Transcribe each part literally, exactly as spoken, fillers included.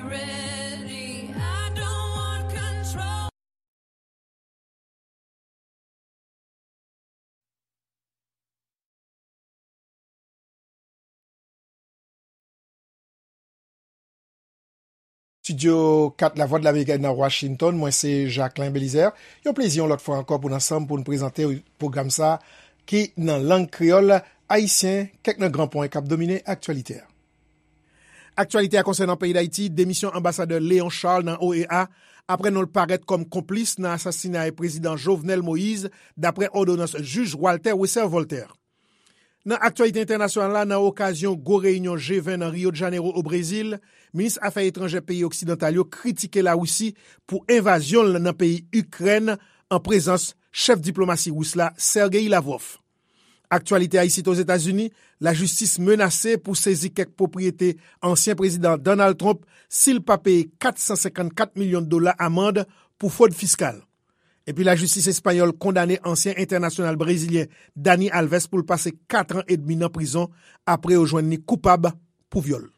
Ready, I don't want control. Estidyo kat Lavwadlamerik nan Washington, mwen se Jacquelin Belizaire. Yon plezi yon lòt fwa ankò pou n ansanm pou n prezante pwogram sa ki nan lang kreyòl ayisyen, kèk nan gran pwen k ap domine aktyalite a. Aktyalite a konsènan peyi Dayiti, demisyon anbasadè Léon Charles nan O E A, apre non l parèt kòm konplis nan asasinay prezidan Jovenel Moïse, daprè òdonans jij Walter Wesser Voltaire. Nan aktyalite entènasyonal la, nan okazyon gwo reyinyon G ven nan Rio de Janeiro, o Brezil, minis afè etranjè peyi oksidantal yo kritike Larisi pou envazyon l nan peyi Ikrèn an prezans chèf diplomasi ris la, Sergei Lavrov. Aktyalite a isit Ozetazini, lajistis menase pou sezi kèk pwopriyete ansyen prezidan Donald Trump si l pa peye kat san senkannkat milyon dola amann pou fwod fiskal. Epi lajistis espanyòl kondane ansyen entènasyonal brezilyen Dani Alves pou l pase kat an edmi nan prizon apre yo jwenn li koupab pou vyòl.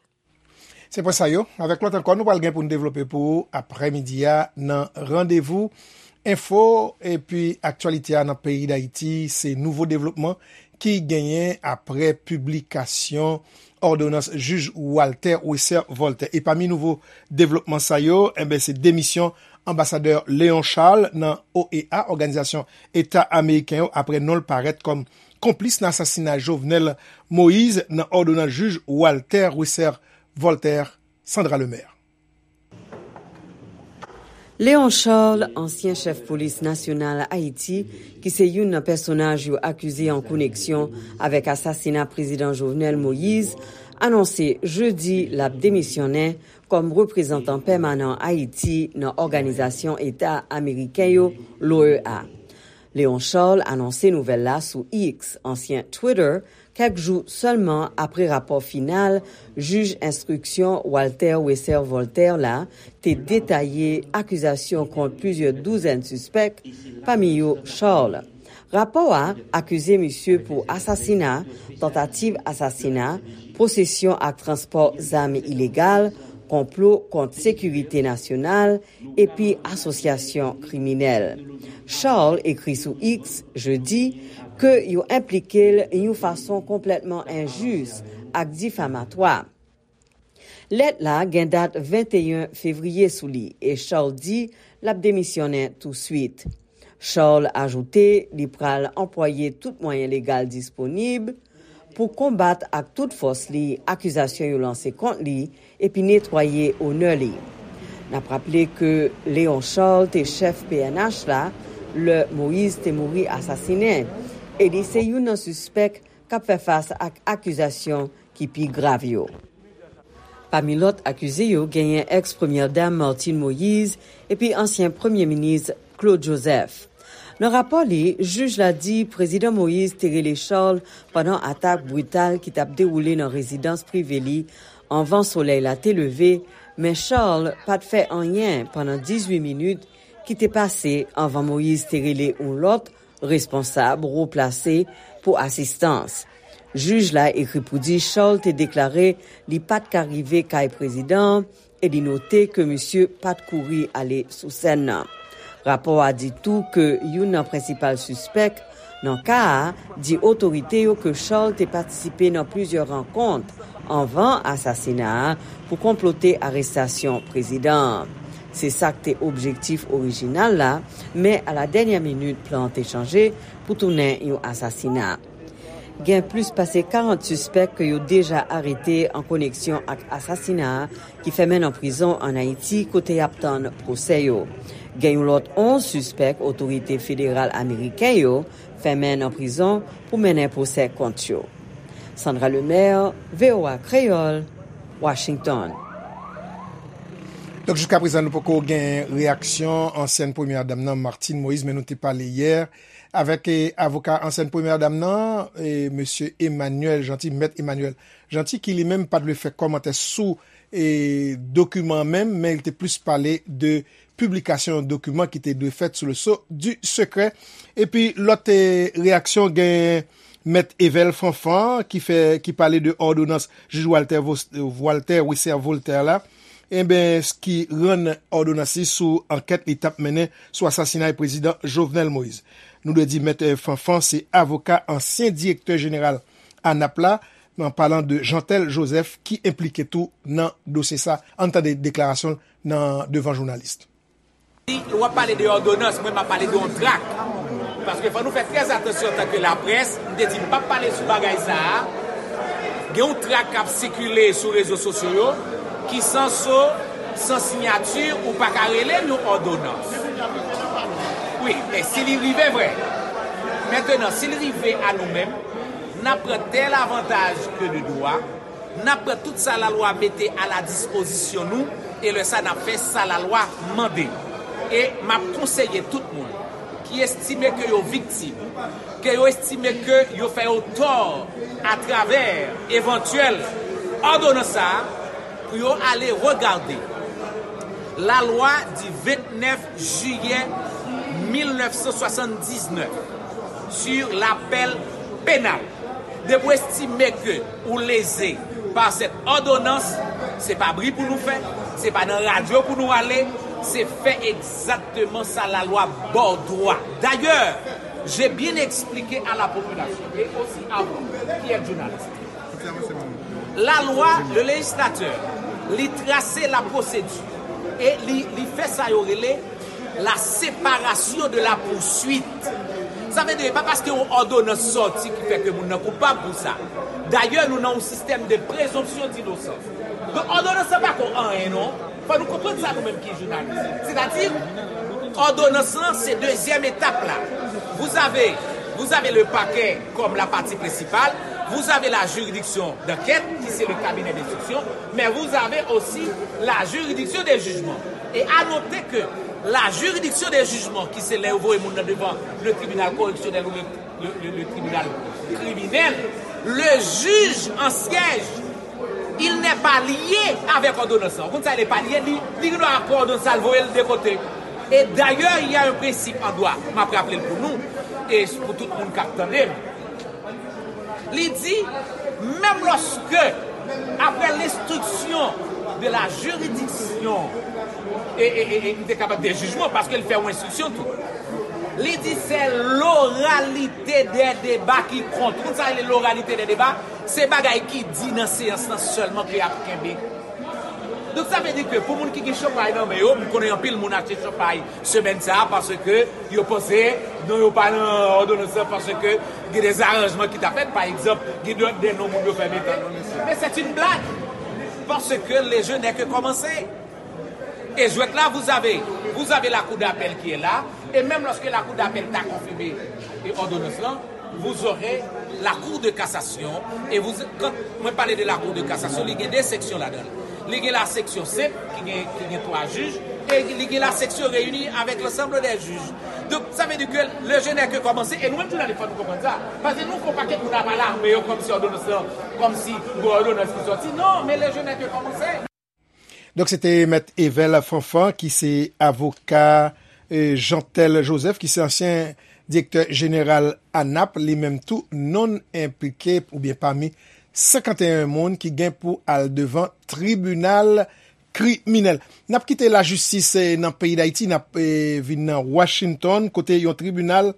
Se pwen sa yo. Avèk lòt ankò, nou pral gen pou n devlope pou ou aprèmidi a nan Randevou Enfo. Epi aktyalite a nan peyi Dayiti, se nouvo devlopman ki genyen apre piblikasyon òdonans jij Walter Wesser Voltaire. E pami nouvo devlopman sa yo, enben, se demisyon anbasadè Léon Charles nan O E A, Òganizasyon Eta Ameriken yo, apre non l parèt kòm konplis nan asasina Jovenel Moïse nan òdonans jij Walter Wesser Voltaire. Sandra Lemaire. Léon Charles, ansyen chèf polis nasyonal Ayiti, ki se youn nan pèsonaj yo akize an koneksyon avèk asasina prezidan Jovenel Moïse, anonse jedi l ap demisyonnen kòm reprezantan pèmanan Ayiti nan Òganizasyon Eta Ameriken yo, l'O E A. Léon Charles anonse nouvèl la sou X, ansyen Twitter, kèk jou sèlman apre rapò final jij enstriksyon Walter Wesser Voltaire la te detaye akizasyon kont plizyè douzèn sispèk, pami yo Charles. Rapò a akize misye pou asasina, tantativ asasina, posesyon ak transpò zam ilegal, konplo kont sekirite nasyonal, epi asosyasyon kriminèl. Charles ekri sou X jedi ke yo enplike l yon fason konplètman enjis ak difamatwa. Lèt la gen dat venteyen fevriye sou li e Charles di l ap demisyonnen touswit. Charles ajoute li pral anplwaye tout mwayen legal disponib pou konbat ak tout fòs li akizasyon yo lanse kont li epi netwaye onè li. N ap raple ke Léon Charles te chèf P N H la lè Moïse te mouri asasinen e li se youn nan sispèk k ap fè fas ak akizasyon ki pi grav yo. Pami lòt akize yo genyen èks premyè dam Martine Moïse epi ansyen premye minis Claude Joseph. Nan rapò li, jij la di Prezidan Moïse te rele Charles pandan atak brital ki t ap dewoule nan rezidans prive li anvan solèy la te leve, men Charles pa t fè anyen pandan dizuit minit ki te pase anvan Moïse te rele yon lòt responsab wo plase pou asistans. Jij la ekri pou di Charles te deklare li pa t ka rive kay prezidan an e li note ke misye pa t kouri ale sou sèn nan. Rapò a di tou ke youn nan prensipal sispèk nan ka a di otorite yo ke Charles te patisipe nan plizyè rankont anvan asasina a pou konplote arestasyon prezidan an. Se sa k te objektif orijinal la, men a la dènyè minit plan an te chanje pou tounen yon asasina. Gen plis pase karant sispèk ke yo deja arete an koneksyon ak asasina a ki fèmen nan prizon ann Ayiti kote y ap tann pwosè yo. Gen yon lòt onz sispèk otorite federal ameriken yo fèmen nan prizon pou mennen pwosè kont yo. Sandra Lemaire, V O A Kreyòl, Washington. Donk, jiskaprezan, nou poko gen reyaksyon ansyèn premyè dam nan, Martine Moïse, men nou te pale yè avèk eh, avoka ansyèn premyè dam nan, eh, mesye Emmanuel Jeanty, mèt Emmanuel Jeanty, ki li menm pa t vle fè kòmantè sou eh, dokiman an menm, men li te plis pale de piblikasyon yon dokiman ki te dwe fèt sou le sceau du secret. Epi lòt eh, reyaksyon gen mèt Evel Fanfan ki fè ki pale de òdonans jij Walter, Walter Wesser Voltaire la. Enben, ki rann òdonans li sou ankèt li t ap mennen sou asasinay prezidan Jovenel Moïse. Nou dwe di Mèt Fanfan se avoka ansyen direktè jeneral ANAP la, an palan de Jeantel Joseph ki enplike tou nan dosye sa. Ann tande deklarasyon l nan devan jounalis. Si w ap pale de òdonans, mwen m ap pale de yon trak. Paske fò nou fè trè atansyon antanke laprès, m te di m p ap pale sou bagay sa a. Gen yon trak k ap sikile sou rezo sosyo yo, ki san so, san siyati, ou pa ka rele l yon òdonans. Wi, men si li rive vre. Mentenan, si li rive a nou menm, n ap pran tèl avantaj ke de dwa, n ap pran tout sa lalwa mete a la dispozisyon nou, e lè sa n ap fè sa lalwa mande. E m ap konseye tout moun ki estime ke yo viktim, ke yo estime ke yo fè yo tò atravè evantyèl òdonans sa a, pou yo ale regade lalwa di vennèf jiyè mil nèf san swasanndisnèf sur l'appel pénal. Depi w estime ke ou leze pa sèt òdonans, se pa bri pou nou fè, se pa nan radyo pou nou ale, se fè egzakteman sa lalwa ba w dwa. D'ailleurs, j'ai bien expliqué à la population et aussi à vous qui êtes journaliste. La loi, le législateur, li trase la pwosedi e li, li fè sa yo rele la séparation de la poursuite. Sa vle di, e pa paske yon òdonans sòti ki fè ke moun nan koupab pou sa. Dayè, nou nan yon sistèm de présomption d'innocence. Donk, òdonans lan pa ko anyen, non. Fò nou konprann sa, nou menm ki jounalis. Sètadi, òdonans lan, se dezyèm etap la. Vous avez, vous avez le parquet comme la partie principale, vous avez la juridiction d'enquête, qui c'est le cabinet d'instruction, mais vous avez aussi la juridiction des jugements. Et à noter que la juridiction des jugements, ki se lè yo voye moun nan devan le tribunal correctionnel ou le, le, le, le tribunal criminel, le juge en siège, il n'est pas lié avec òdonans lan. Ou konn sa, il n'est pas lié, li, li gen dwa pran òdonans la, l voye l de kote. Et d'ailleurs, il y a un principe en droit, m ap raple l pou nou, e pou tout moun k ap tande m. Li di, menm lòske, après l'instruction de la juridiction, e, e, e, e, li te kapab de jijman, paske l fè yon enstriksyon tou. Li di, c'est l'oralité des débats qui compte. Ou konn sa rele l'oralité des débats? Se bagay ki di nan seyans lan sèlman ke y ap kenbe. Donk, sa vle di ke pou moun ki gen chanpay nan men yo, m konnen anpil moun achte chanpay semèn sa a, paske yo panse non yo pa nan òdonans lan, paske gen de zaranjman ki ta fèt, pa egzanp, gen de, de non moun yo fè mete. Men c'est une blague, parce que le jeu n'est que commencé. Et jwèt la, vous avez, vous avez la cour d'appel qui est là, et même lorsque la cour d'appel ta konfime e òdonans lan, vous aurez la Cour de cassation, et vous, quand mwen pale de la Cour de cassation, li gen de seksyon ladan l. Li gen la seksyon senp, ki gen, ki gen twa jij, e li gen la seksyon reyini avec l'ensemble des juges. Donk, sa vle di ke le jeu n'est que commencé, e nou menm jounalis, fò nou konprann sa. Paske nou fè yon pakèt moun ap alarme yo kòmsi òdonans lan, kòmsi gon òdonans ki sòti. Non, men le jeu n'est que commencé. Donk, se te Mèt Evel Fanfan, ki se avoka, e, Jeantel Joseph, ki se ansyen direktè jeneral ANAP, li menm tou nonn enplike oubyen pami senkanteyen moun ki gen pou al devan tribinal kriminèl. N ap kite lajistis, e, nan peyi Dayiti, n ap, e, vin nan Washington, kote yon tribinal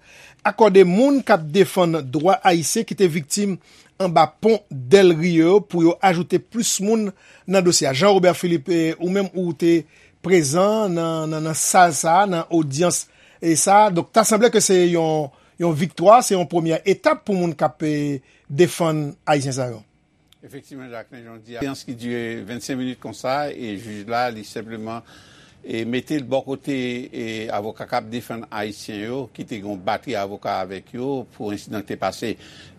akòde moun k ap defann dwa ayisyen ki te viktim anba pon Del Rio pou yo ajoute plis moun nan dosye a. Jean Robert Philippe, e, ou menm ou te prezan nan, nan, nan sal sa a, nan odyans e sa a. Donk, ta sanble ke se yon, yon viktwa, se yon premyè etap pou moun k ap, e, defann Ayisyen sa yo. Efektivman, Jacquelin, jan w di a, seyans ki dire vennsenk minit konsa, e jij la, li senpleman, e mete l bò kote, e avoka k ap defann Ayisyen yo, ki te gen yon batri avoka avèk yo pou ensidan ki te pase,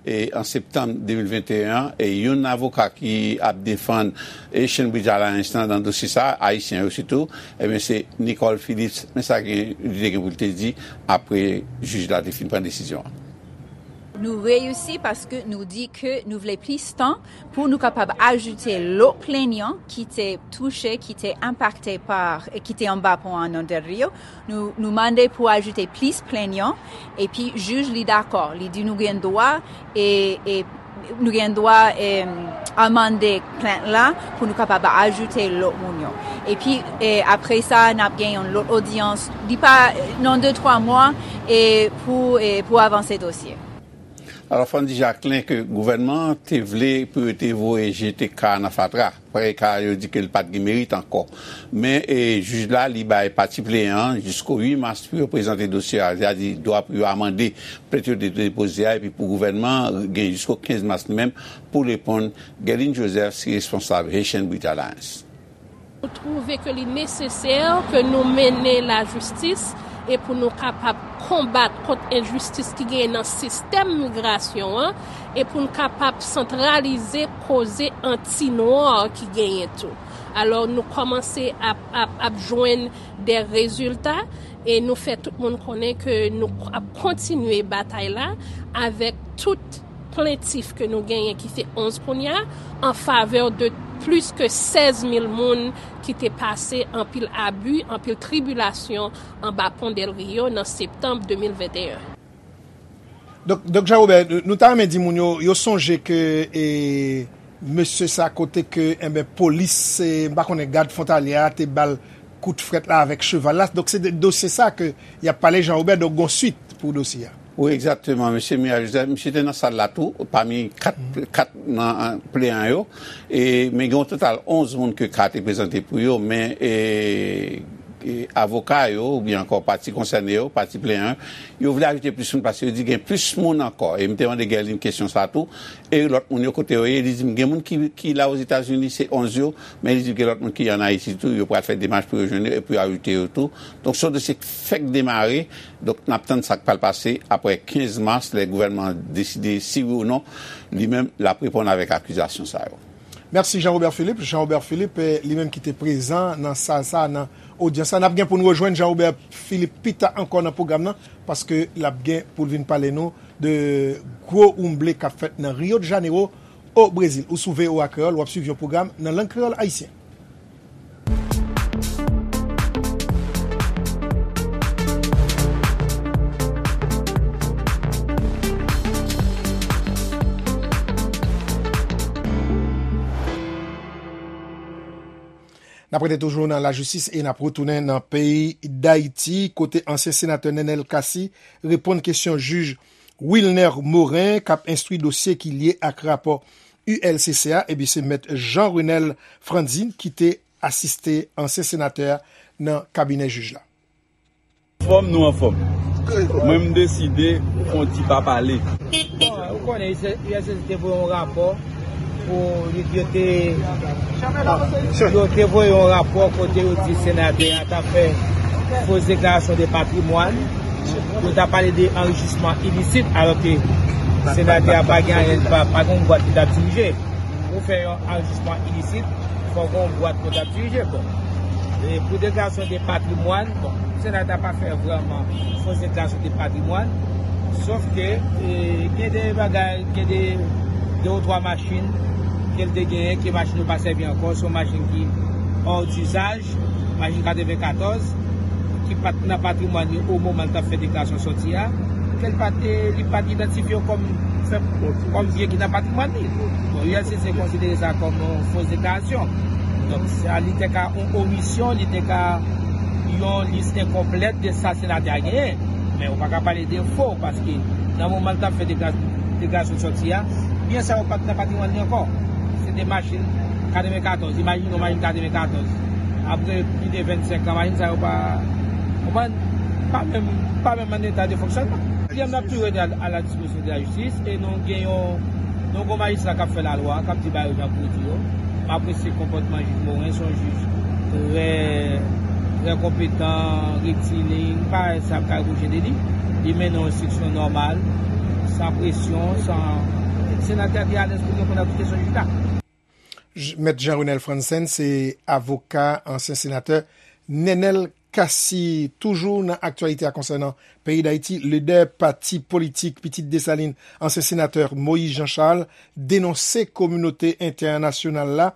e an septanm de mil venteyen an, e youn avoka ki ap defann, e Chainbridge Alliance lan nan dosye sa, Ayisyen yo sitou, ebyen se Nicole Phillips, men sa gen, li te gen pou l te di, apre jij la te fin pran desizyon an. Nou reyisi paske nou di ke nou vle plis tan pou nou kapab ajoute lòt plenyan ki te touche, ki te enpakte pa, ki te anba pon an nan Del Rio. Nou, nou mande pou ajoute plis plenyan, epi jij li dakò, li di nou gen dwa, e, e nou gen dwa, e, amande plent la pou nou kapab ajoute lòt moun yo. Epi, e, apre sa, n ap gen yon lòt odyans, li pa, nan de twa mwa, e, pou, e, pou avanse dosye. Alò, Frandy Jacquelin, ke gouvènman an te vle pou yo te voye jete ka a nan fatra. Paske ka a yo di ke li pa t gen merit ankò. Men, e, jij la, li bay pati pleyan an jisko uit mas pou yo prezante dosye a, sètadi dwa pou yo amande plent yo te depoze a, epi pou gouvènman an gen jisko kenz mas li menm pou reponn. Guerline Joseph se responsab Haitian Bridge Alliance. Nou twouve ke li nesesè ke nou mennen lajistis e pou nou kapab konbat kont enjistis ki genyen nan sistèm migrasyon an e pou n kapab santralize koze anti-nwa ki genyen tou. Alò, nou kòmanse ap, ap, ap jwenn de rezilta e nou fè tout moun konnen ke nou ap kontinye batay la avèk tout plentif ke nou genyen ki se onz kounye a an favè de plis ke sèz mil moun ki te pase anpil abi, anpil tribilasyon anba pon Del Rio nan septanm de mil venteyen. Donk, Donk Jean Robert, nou ta renmen di moun yo, yo sonje ke e, mesye sa kote ke enben polis, e, m pa konnen gad fwontalye a te ba l kout frèt la avèk cheval la. Donk se de dosye sa ke y ap pale Jean Robert, donk gon swit pou dosye a. Wi, egzakteman. Mesye Miraj Joseph, misye te nan sal la tou, pami kat, kat nan pleyan yo. E, men gen yon total onz moun ke ka te prezante pou yo, men e, e, avoka yo, oubyen ankò pati konsène yo, pati pleyan yo, yo vle ajoute plis moun paske yo di gen plis moun ankò. E m te mande Guerline kesyon sa tou. E lòt moun yo kote yo ye, li di m gen moun ki, ki la Ozetazini, se onz yo, men li di gen lòt moun ki ann Ayiti tou, yo pral fè demach pou yo jwenn yo e pou yo ajoute yo tou. Donk se yon dosye k fèk demare, donk n ap tann sa k pral pase apre kenz mas lè gouvènman an deside si wi ou non li menm l ap reponn avèk akizasyon sa yo. Mèsi Jean Robert Philippe. Jean Robert Philippe, eh, li menm ki te prezan nan sal sa a, nan odyans la. N ap gen pou n rejwenn Jean Robert Philippe pita ankò nan pwogram nan, paske l ap gen pou l vin pale nou de gwo woumble k ap fèt nan Rio de Janeiro, o Brezil. Ou sou V O A Kreyòl, w ap swiv yon pwogram nan lang kreyòl ayisyen. N ap rete toujou nan lajistis e n ap retounen nan peyi Dayiti, kote ansyen senatè Nenel Cassy reponn kesyon jij Wilner Morin k ap enstwi dosye ki lye ak rapò U L C C a, epi se mèt Jean Renel Frantzin ki te asiste ansyen senatè a nan kabinè jij la. Anfòm, nou anfòm. Mwen m deside fè yon ti pa pale. Ou konnen U L C C te voye yon rapò pou yo te yo te voye yon rapò kote yo di senatè a t ap fè fo deklarasyon de patrimwàn. Yo t ap pale de anrichisman ilisit, alòske senatè a pa gen anyen, pa, pa gen yon bwat li t ap dirije. Pou fè yon anrichisman ilisit, fò gen yon bwat pou t ap dirije. Bon, e pou deklarasyon de patrimwàn, bon, senatè a pa fè vrèman fo deklarasyon de patrimwàn. Sòf ke e, gen de bagay, gen de de ou twa machin ke l te genyen, ke machin yo pa sèvi ankò, se yon machin ki hors d'usage, machin katrevenkatòz, ki pa t nan patrimwàn li o moman l t ap fè deklarasyon sòti a, ke l pa t, li pa t idantifye yo kòm, kòm byen ki nan patrimwàn li. Bon, U L C C konsidere sa kòm yon fo deklarasyon. Donk, sa li te ka yon omisyon, li te ka yon lis enkonplèt de sa senatè a genyen. Men ou pa ka pale de fo, paske nan moman l t ap fè dekla-, deklarasyon sòti a, byen sa yo pa t nan patrimwàn li ankò. Se te machin katrevenkatòz, imajine w machin katrevenkatòz. Apre plis de vennsenk an, machin sa yo pa, konprann, pa menm, pa menm an eta de fonksyònman. Byen, n ap toujou rete a, a la dispozisyon de lajistis e nou gen yon, yon gwo majistra k ap fè lalwa, k ap di bagay yo jan pou yo di yo. M apresye konpòtman jij Morin, se yon jij trè, trè konpetan, rektilin, m pa wè sa m ka repwoche de li. Li mennen yon enstriksyon nòmal, san presyon, san, senatè a te alèz pou l reponn a tout kesyon jij la. J-, Mèt Jean Renel Frantzin se avoka ansyen senatè Nenel Cassy. Toujou nan aktyalite a konsènan peyi Dayiti, lidè pati politik Pitit Desalin, ansyen senatè Moïse Jean Charles, denonse kominote entènasyonal la,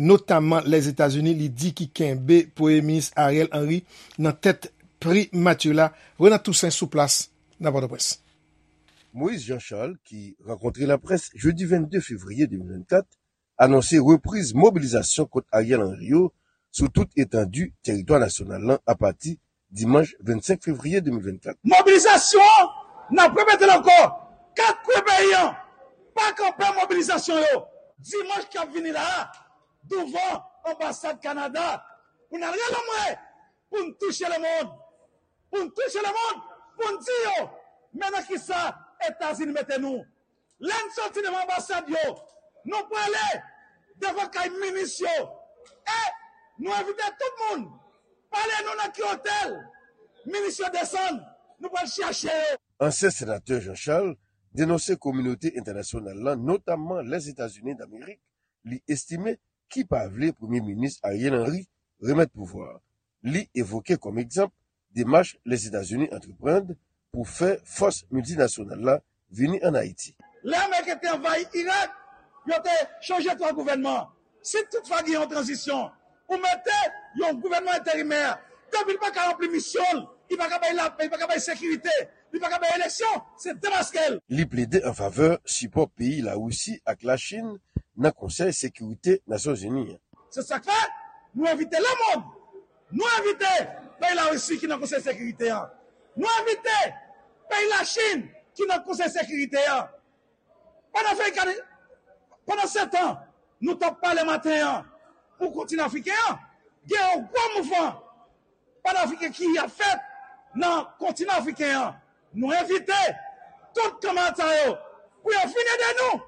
notamman Lèzetazini, li di ki kenbe Premye Minis Ariel Henry nan tèt primati la. Renan Toussaint sou plas nan Pòtoprens. Moïse Jean Charles, ki rankontre laprès jedi vennde fevriye de mil vennkat, anonse repriz mobilizasyon kont Ariel Henry yo sou tout etandi tèritwa nasyonal lan apati dimanch vennsenk fevriye de mil vennkat. Mobilizasyon an, n ap repete l ankò, kat kwen peyi an, pa kanpe mobilizasyon yo, dimanch k ap vini la a, douvan anbasad Kanada, pou n al rele anmwe, pou n touche lemonn, pou n touche lemonn, pou n di yo, men nan kisa Etazini mete nou. Lè n soti devan anbasad yo, nou prale devan kay minis yo, e nou envite tout moun, pale nou nan ki otèl minis yo desann, nou pral chache yo. Ansyen senatè Jean Charles denonse kominote entènasyonal lan, notamman Lèzetazini Damerik, li estime ki pa vle Premye Minis Ariel Henry remèt pouvwa a. Li evoke kòm egzanp demach Lèzetazini antreprann pou fè fòs miltinasyonal la vini ann Ayiti. Lè Ameriken te anvayi Irak, yo te chanje twa gouvènman. Si toutfwa gen yon tranzisyon, ou mete yon gouvènman enterimè, depi l pa ka ranpli misyon l, li pa ka bay lapè, li pa ka bay sekirite, li pa ka bay eleksyon, se demaske l. Li plede an favè sipò peyi Larisi ak Lachin nan Konsèy Sekirite Nasyonzini an. Se sa k fè, nou envite lemonn, nou envite peyi Larisi ki nan Konsèy Sekirite an, nou envite peyi Lachin ki nan Konsèy Sekirite an. Panafrikan, pandan se tan, nou t ap pale maten an pou kontinan afriken an, gen yon gwo mouvman panafriken ki ap fèt nan kontinan afriken an. Nou envite tout kanmarad sa yo pou yo vin ede nou,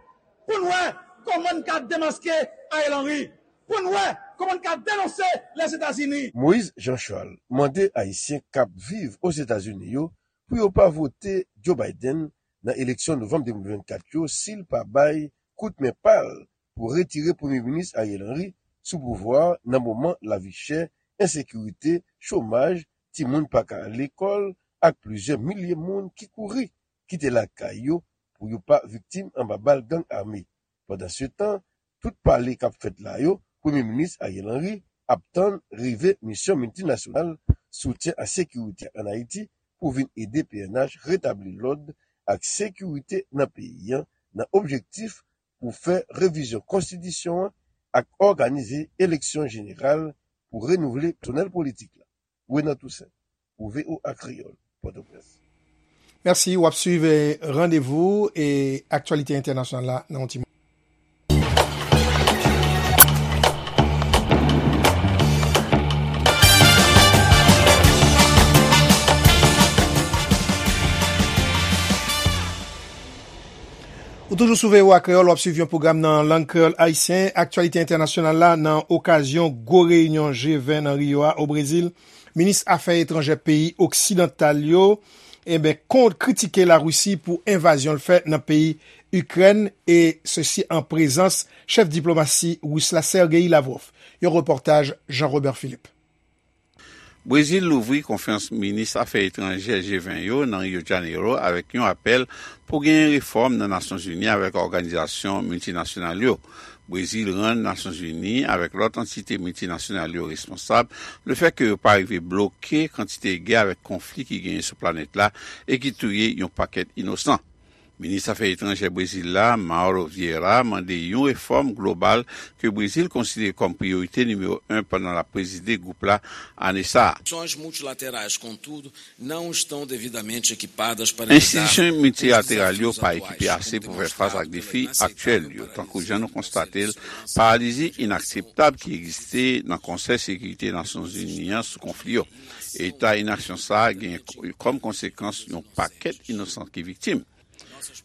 pou n wè kòman n ka demaske Ariel Henry, pou n wè kòman n ka denonse Lèzetazini. Moïse Jean Charles mande Ayisyen k ap viv Ozetazini yo pou yo pa vote Joe Biden nan eleksyon novanm de mil vennkat yo si l pa bay kout men pa l pou retire Premye Minis Ariel Henry sou pouvwa a nan moman lavi chè, ensekirite, chomaj, timoun pa ka al lekòl ak plizyè milye moun ki kouri kite lakay yo pou yo pa viktim anba bal gang ame. Pandansetan, tout pale k ap fèt la yo, Premye Minis Ariel Henry ap tann rive misyon miltinasyonal soutyen a sekirite ann Ayiti pou vin ede P N H retabli lòd ak sekirite nan peyi an, nan objektif pou fè revizyon konstitisyon an ak òganize eleksyon jeneral pou renouvle pèsonèl politik la. Renan Toussaint, pou V O A Kreyòl, Pòtoprens. Mèsi, w ap swiv, eh, randevou e aktyalite entènasyonal la nan yon ti moman. Ou toujou sou V O A Kreyòl, w ap swiv yon pwogram nan lang kreyòl ayisyen, aktyalite entènasyonal la nan okazyon gwo reyinyon G ven nan Rio a, o Brezil. Minis afè etranjè peyi oksidantal yo, enben, kont kritike Larisi pou envazyon l fè nan peyi Ikrèn, e sesi an prezans chèf diplomasi ris la, Sergei Lavrov. Yon repòtaj Jean Robert Philippe. Brezil louvri konferans minis afè etranjè G ven yo nan Rio de Janeiro avèk yon apèl pou genyen refòm nan Nasyonzini avèk òganizasyon miltinasyonal yo. Brezil rann Nasyonzini avèk lòt antite miltinasyonal yo responsab lefètke yo pa rive bloke kantite gè avèk konfli ki genyen sou planèt la e ki touye yon pakèt inosan. Minis afè etranjè Brezil la, Mauro Vieira, mande yon refòm global ke Brezil konsidere kòm priyorite nimewo en pandan l ap prezide gwoup la ane sa a. Soluções multilaterais, contudo, não estão devidamente equipadas para lidar com os desafios atuais, com temas complexos, complexidade, tankou jan nou konstate l, paralizi inakseptab ki egziste nan Konsèy Sekirite Nasyonzini an sou konfli yo. Eta inaksyon sa a gen kòm konsekans yon pakèt inosan ki viktim.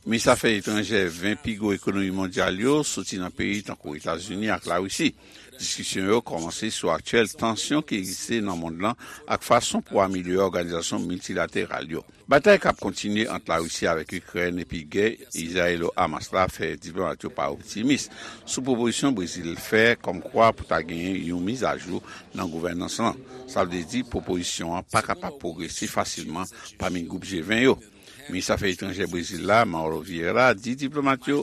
Minis afè etranjè ven pi gwo ekonomi mondyal yo soti nan peyi tankou Etazini ak Larisi. Diskisyon yo kòmanse sou aktyèl tansyon ki egziste nan mond lan ak fason pou amelyore òganizasyon miltilateral yo. Batay k ap kontinye ant Larisi avèk Ikrèn epi gè Izrayelo-Hamas la fè diplomat yo pa optimis sou pwopozisyon Brezil fè kòmkwa pou ta genyen yon mizajou nan gouvènans lan. Sa vle di pwopozisyon an pa kapab pwogrese fasilman pami gwoup G ven yo. Minis afè etranjè Brezil la, Mauro Vieira, di diplomat yo,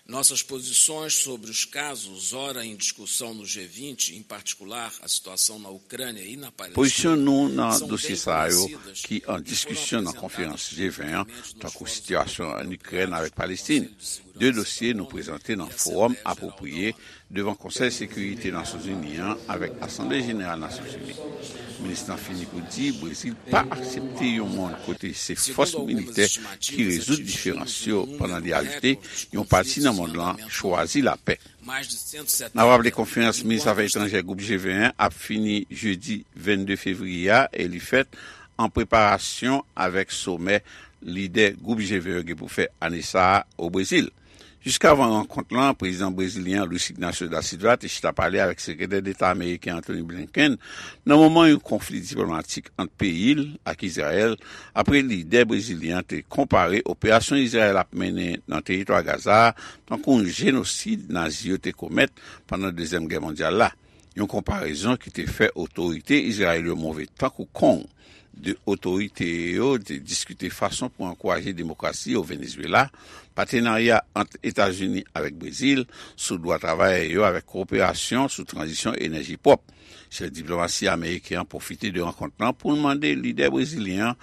nossas posições sobre os casos ora em discussão no G vinte, em particular a situação na Ucrânia e na Palestina, pozisyon nou nan dosye sa yo ki an diskisyon nan konferans G ven an, tankou sitiyasyon an Ikrèn avèk Palestin. De dosye nou prezante nan fowòm apwopriye devan Konsèy Sekirite Nasyonzini an avèk Asanble Jeneral Nasyonzini. Minis lan fini pou di Brezil pa aksepte yon mond kote se fòs militè ki rezoud diferans yo, pandan li ajoute, yon pati nan mond lan chwazi lapè. N ap raple konferans minis afè etranjè gwoup G ven an ap fini jedi vennde fevriye a e li fèt an preparasyon avèk somè lidè gwoup G ven an gen pou fè ane sa a o Brezil. Jiskavan rankont lan, prezidan brezilyen an Luiz Ignacio da Silva te chita pale avèk sekretè deta ameriken Antony Blinken nan moman yon konfli diplomatik ant peyi l ak Izrayèl, apre lidè brezilyen an te konpare operasyon Izrayèl ap mennen nan teritwa Gaza a tankou yon jenosid Nazi yo te komèt pandan Dezyèm Gè Mondyal la. Yon konparezon ki te fè otorite Izrayèl yo move tankou kong. De otorite yo te diskite fason pou ankouraje demokrasi o Venezuela, patenarya ant Etazini avèk Brezil sou dwa travayè yo avèk kowoperasyon sou tranzisyon enèji pwòp. Chèf diplomasi ameriken an pwofite de rankont lan pou l mande lidè brezilyen an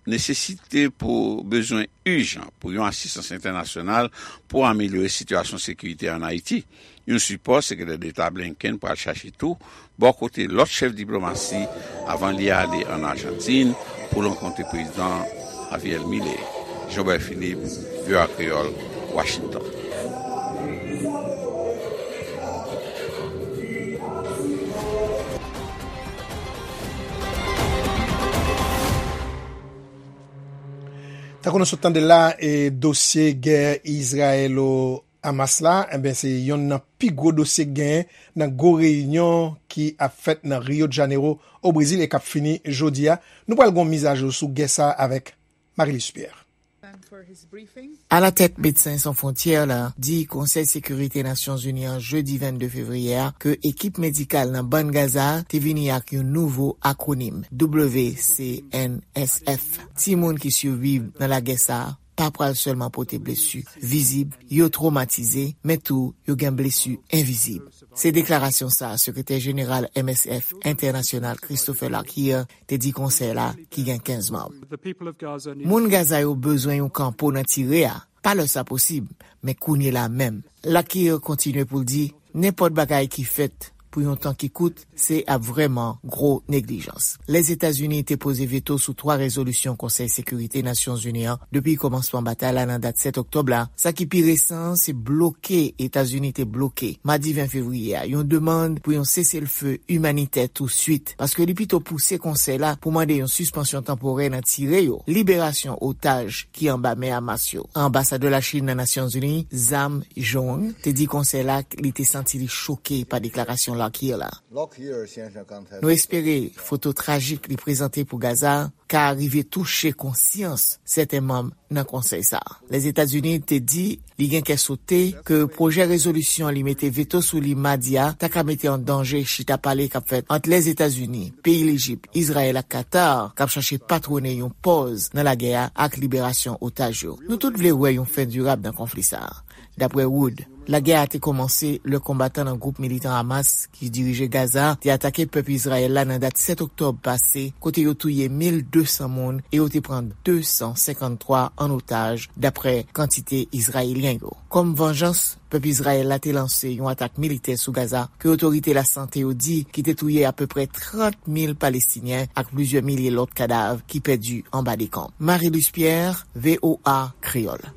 nesesite pou bezwen ijan pou yon asistans entènasyonal pou amelyore sitiyasyon sekirite ann Ayiti. Yon sipò sekretè deta Blinken pral chache tou bò kote lòt chèf diplomasi avan li ale ann Ajantin pou l rankontre prezidan Javier Milei. Jean Bert Philippe, V O A Kreyòl, Washington. Tankou nou sot tande la, e dosye gè Izrayelo Hamas la, enben, se yonn nan pi gwo dosye k genyen nan gwo reyinyon ki ap fèt nan Rio de Janeiro, o Brezil, e k ap fini jodi a. Nou pral gon mizajou sou gè sa a avèk Marie-Luce Pierre. Alatèt Medsen San Fwontyè la di Konsèy Sekirite Nasyonzini an jedi vennde fevriye a ke ekip medikal nan Bann Gaza a te vini ak yon nouvo akwonim, W C N S F. Timoun ki siviv nan lagè sa a pa pral sèlman pote blesi vizib, yo twomatize, men tou yo gen blesi envizib. Se deklarasyon sa a Sekretè Jeneral M S F Entènasyonal Christopher Larkier te di konsèy la ki gen kenz manm. Moun Gaza yo bezwen yon kanpo nan tire a, pa lè sa posib, men kounye la menm. Larkier kontinye pou l di, nenpòt bagay ki fèt pou yon tan ki kout, se ap vrèman gwo neglijans. Lèzetazini te poze veto sou twa rezolisyon Konsèy Sekirite Nasyonzini an depi kòmansman batay la nan dat sèt oktòb la. Sa ki pi resan an se bloke Etazini te bloke, madi ven fevriye a, yon demann pou yon seselfe imanitè touswit, paske li pito pouse konsèy la pou mande yon sispansyon tanporè nan tire yo, liberasyon otaj ki anba men Hamas yo. Anbasadè Lachin nan Nasyonzini, Zhang Zhang, te di konsèy la li te santi li choke pa deklarasyon Larkier la. Nou espere foto trajik li prezante pou Gaza a ka rive touche konsyans sèten manm nan konsèy sa a. Lèzetazini te di li gen kè sote ke pwojè rezolisyon li mete veto sou li madi a ta ka mete an danje chita pale k ap fèt ant Lèzetazini, peyi Lejip, Izrayèl ak Katar k ap chache patwone yon pòz nan lagè a ak liberasyon otaj yo. Nou tout vle wè yon fen dirab nan konfli sa a. Daprè Wood, lagè a te kòmanse lè konbatan nan gwoup militan Hamas ki dirije Gaza te atake pèp Izrayèl la nan dat sèt oktòb pase, kote yo touye mil de san moun e yo te pran de san senkanntwa an otaj, daprè kantite Izrayelyen yo. Kòm vanjans, pèp Izrayèl la te lanse yon atak militè sou Gaza ke otorite lasante yo di ki te touye apeprè trant mil Palestinyen ak plizyè milye lòt kadav ki pèdi anba dekonb. Marie-Luce Pierre, V O A Kreyòl.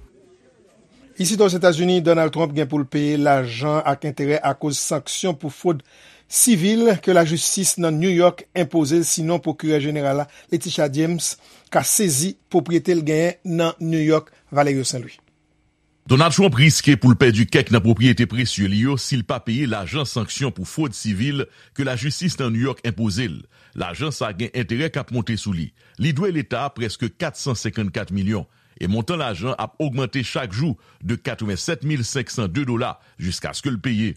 Isit Ozetazini, Donald Trump gen pou l peye lajan ak enterè akoz sanksyon pou fwod sivil ke lajistis nan New York enpoze l, sinon Pwokirè Jeneral la, Letitia James, ka sezi pwopriyete l genyen nan New York. Valerio Saint Louis. Donald Trump riske pou l pèdi kèk nan pwopriyete presye li yo si l pa peye lajan sanksyon pou fwod sivil ke lajistis nan New York enpoze l. Lajan sa a gen enterè k ap monte sou li. Li dwe leta a prèske kat san senkannkat milyon, e montan lajan ap ogmante chak jou de katrevennsèt mil senk san de dola jiskaske l peye.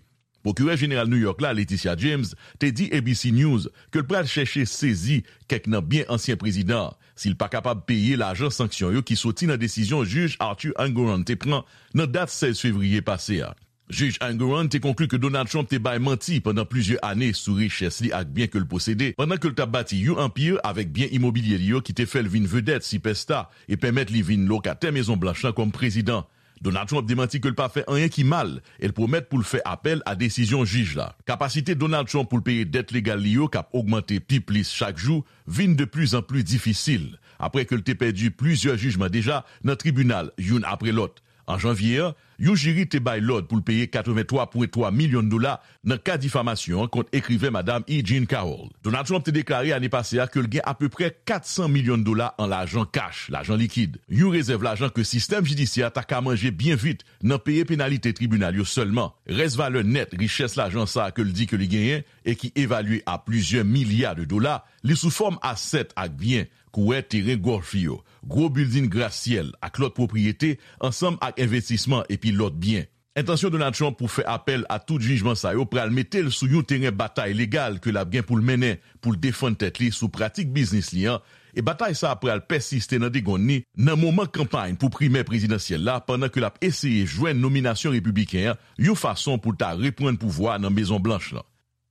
Pwokirè Jeneral New York la, Letitia James, te di A B C News ke l pral chèche sezi kèk nan byen ansyen prezidan an si l pa kapab peye lajan sanksyon yo ki soti nan desizyon Jij Arthur Engoron te pran nan dat sèz fevriye pase a. Jij Engoron te konkli ke Donald Trump te bay manti pandan plizyè ane sou richès li ak byen ke l posede pandan ke l t ap bati yon anpi avèk byen imobilye li yo ki te fè l vin vedèt sipèsta e pèmèt li vin lokatè Mezon Blanch lan kòm prezidan. Donald Trump demanti ke l pa fè anyen ki mal e l pwomèt pou l fè apèl a desizyon jij la. Kapasite Donald Trump pou l peye dèt legal li yo k ap ogmante pi plis chak jou vin de plizanpli difisil, apre ke l te pèdi plizyè jijman deja nan tribinal, youn apre lòt. An janvye an, yon jiri te bay lòd pou l peye katrevenntwa pwen twa milyon dola nan ka difamasyon an kont ekriven Madam E. Jean Carroll. Donald Trump te deklare ane pase a ke l gen apeprè kat san milyon dola an lajan kach, lajan likid, yon rezèv lajan ke sistèm jidisyè a ta ka manje byen vit nan peye penalite tribinal yo sèlman. Rès valè nèt richès lajan sa a ke l di ke li genyen e ki evalye a plizyè milya de dola, li sou fòm asèt ak byen, kouwè teren gòlf yo, gwo bilding grasyèl ak lòt pwopriyete, ansanm ak envestisman epi lòt byen. Entansyon Donald Trump pou fè apèl a tout jijman sa yo pral mete l sou yon teren batay legal ke l ap gen pou l mennen pou l defann tèt li sou pratik biznis li an, e batay sa a pral pèsiste nan degonn li nan moman kanpay pou primè prezidansyèl la, pandan ke l ap eseye jwenn nominasyon repibliken an yon fason pou l ta reprann pouvwa nan Mezon Blanch lan.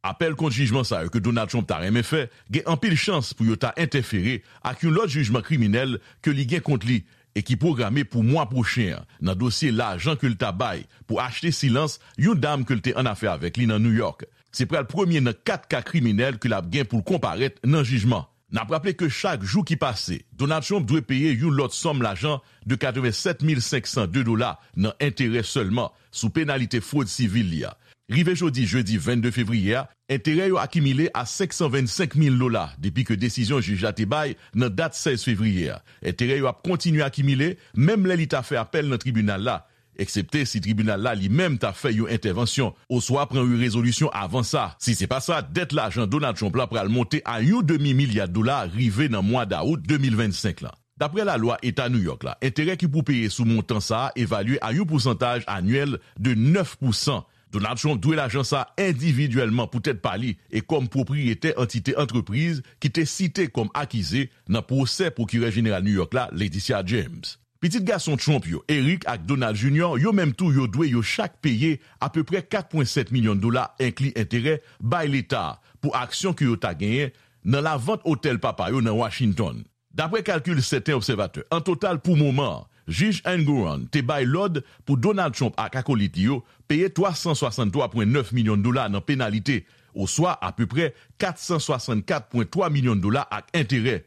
Apèl kont jijman sa yo ke Donald Trump ta renmen fè gen anpil chans pou yo ta entèfere ak yon lòt jijman kriminèl ke li gen kont li e ki pwograme pou mwa pwochen an nan dosye lajan ke l ta bay pou achte silans yon dam ke l te annafè avèk li nan New York. Se pral premye nan kat ka kriminèl ke l ap gen pou l konparèt nan jijman. N ap raple ke chak jou ki pase, Donald Trump dwe peye yon lòt sòm lajan de katrevennsèt mil senk san de dola nan enterè sèlman sou penalite fwod sivil li a. Rive jodi, jedi vennde fevriye a, enterè yo akimile a senk san vennsenk mil dola depi ke desizyon jij la te bay nan dat sèz fevriye a. Enterè yo ap kontinye akimile menm lè li ta fè apèl nan tribinal la, eksepte si tribinal la li menm ta fè yon entèvansyon oswa pran yon rezolisyon avan sa. Si se pa sa, dèt lajan Donald Trump la pral monte a yon demi milya dola rive nan mwa dawout de mil vennsenk lan. Daprè lalwa Eta New York la, enterè ki pou peye sou montan sa a evalye a yon pousantaj anyèl de nèf pousan. Donald Trump dwe lajan sa a endividyèlman poutèt pa li e kòm pwopriyetè antite antrepriz ki te site kòm akize nan pwosè Pwokirè Jeneral New York la, Letitia James. Pitit gason Trump yo, Eric ak Donald Junior, yo menm tou yo dwe yo chak peye apeprè kat pwen sèt milyon dola, enkli enterè, bay Leta a pou aksyon ke yo ta genyen nan lavant otèl papa yo nan Washington. Daprè kalkil sèten obsèvatè, an total pou moman an, jij Engoron te bay lòd pou Donald Trump ak akolit li yo peye twa san swasanntwa pwen nèf milyon dola nan penalite, oswa apeprè kat san swasannkat pwen twa milyon dola ak enterè.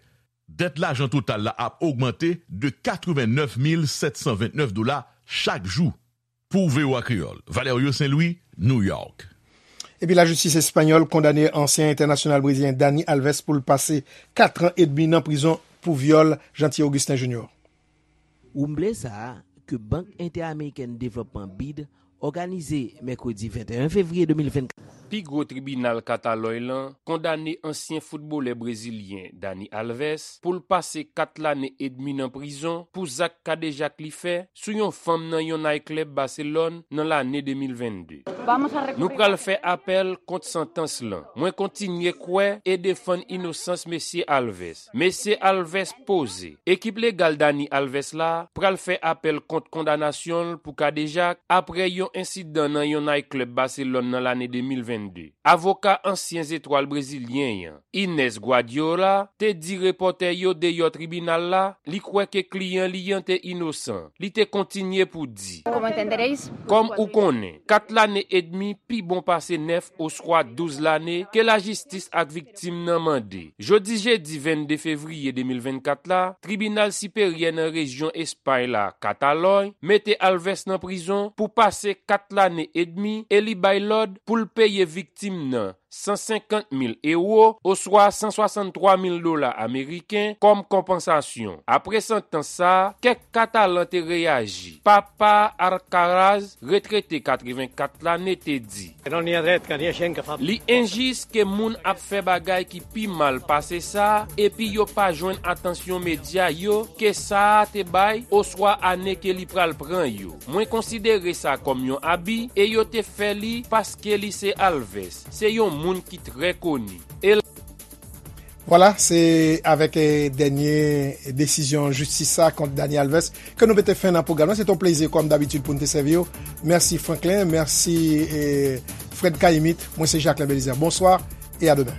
Dèt lajan total la ap ogmante de katrevennèf mil sèt san vennèf dola chak jou. Pou V O A Kreyòl, Valerio Saint-Louis, New York. Epi lajistis espanyòl kondane ansyen entènasyonal brezilyen Dani Alves pou l pase kat an edmi nan prizon pou vyòl Jeanty Augustin Junior. Woumble sa a, ke Bank Entèamerikèn Devlòpman, bid, òganize mèkredi venteyen fevriye de mil vennkat. Pi gwo tribinal Katalòy lan kondane ansyen foutbolè brezilyen Dani Alves pou l pase kat lane edmi nan prizon pou zak kadejak li fè sou yon fanm nan yon nayklèb Baselòn nan lane de mil vennde. Nou pral fè apèl kont santans lan. Mwen kontinye kwè e defann inosans mesye Alves. Mesye Alves poze. Ekip legal Dani Alves la pral fè apèl kont kondanasyon l pou kadejak apre yon ensidan nan yon nayklèb Baselòn nan lane de mil vennde. Avoka ansyen zetwal brezilyen an, Ines Guardiola, te di repòtè yo deyò tribinal la li kwè ke kliyan li an te inosan. Li te kontinye pou di, Kòm ou konnen, kat lane edmi pi bon pase nèf oswa douz lane ke lajistis ak viktim nan mande. Jodi jedi vennde fevriye de mil vennkat la, Tribinal Siperyè nan rejyon Espay la, Katalòy, mete Alves nan prizon pou pase kat lane edmi e li bay lòd pou l peye viktim nan san senkant mil ewo, oswa san swasanntwa mil dola ameriken, kòm konpansasyon. Apre santans sa a, kèk Katalan te reyaji. Papa Alcaraz, retrete katrevenkat lane, te di, li enjis ke moun ap fè bagay ki pi mal pase sa, epi yo pa jwenn atansyon medya yo ke sa a te bay, oswa ane ke li pral pran yo. Mwen konsidere sa kòm yon abi, e yo te fè li paske li se Alves. Se yon moun ki trè koni. E l- Vwala, se avèk, eh, dènye desizyon jistis sa kont Dani Alves ke nou mete fen nan pwogram nan. Se te yon plezi, kòm dabitid, pou n te sèvi w. Mèsi, Franklin. Mèsi, eh, Fred Kayimit. Mwen se Jacquelin Belizaire. Bonswa e a demen.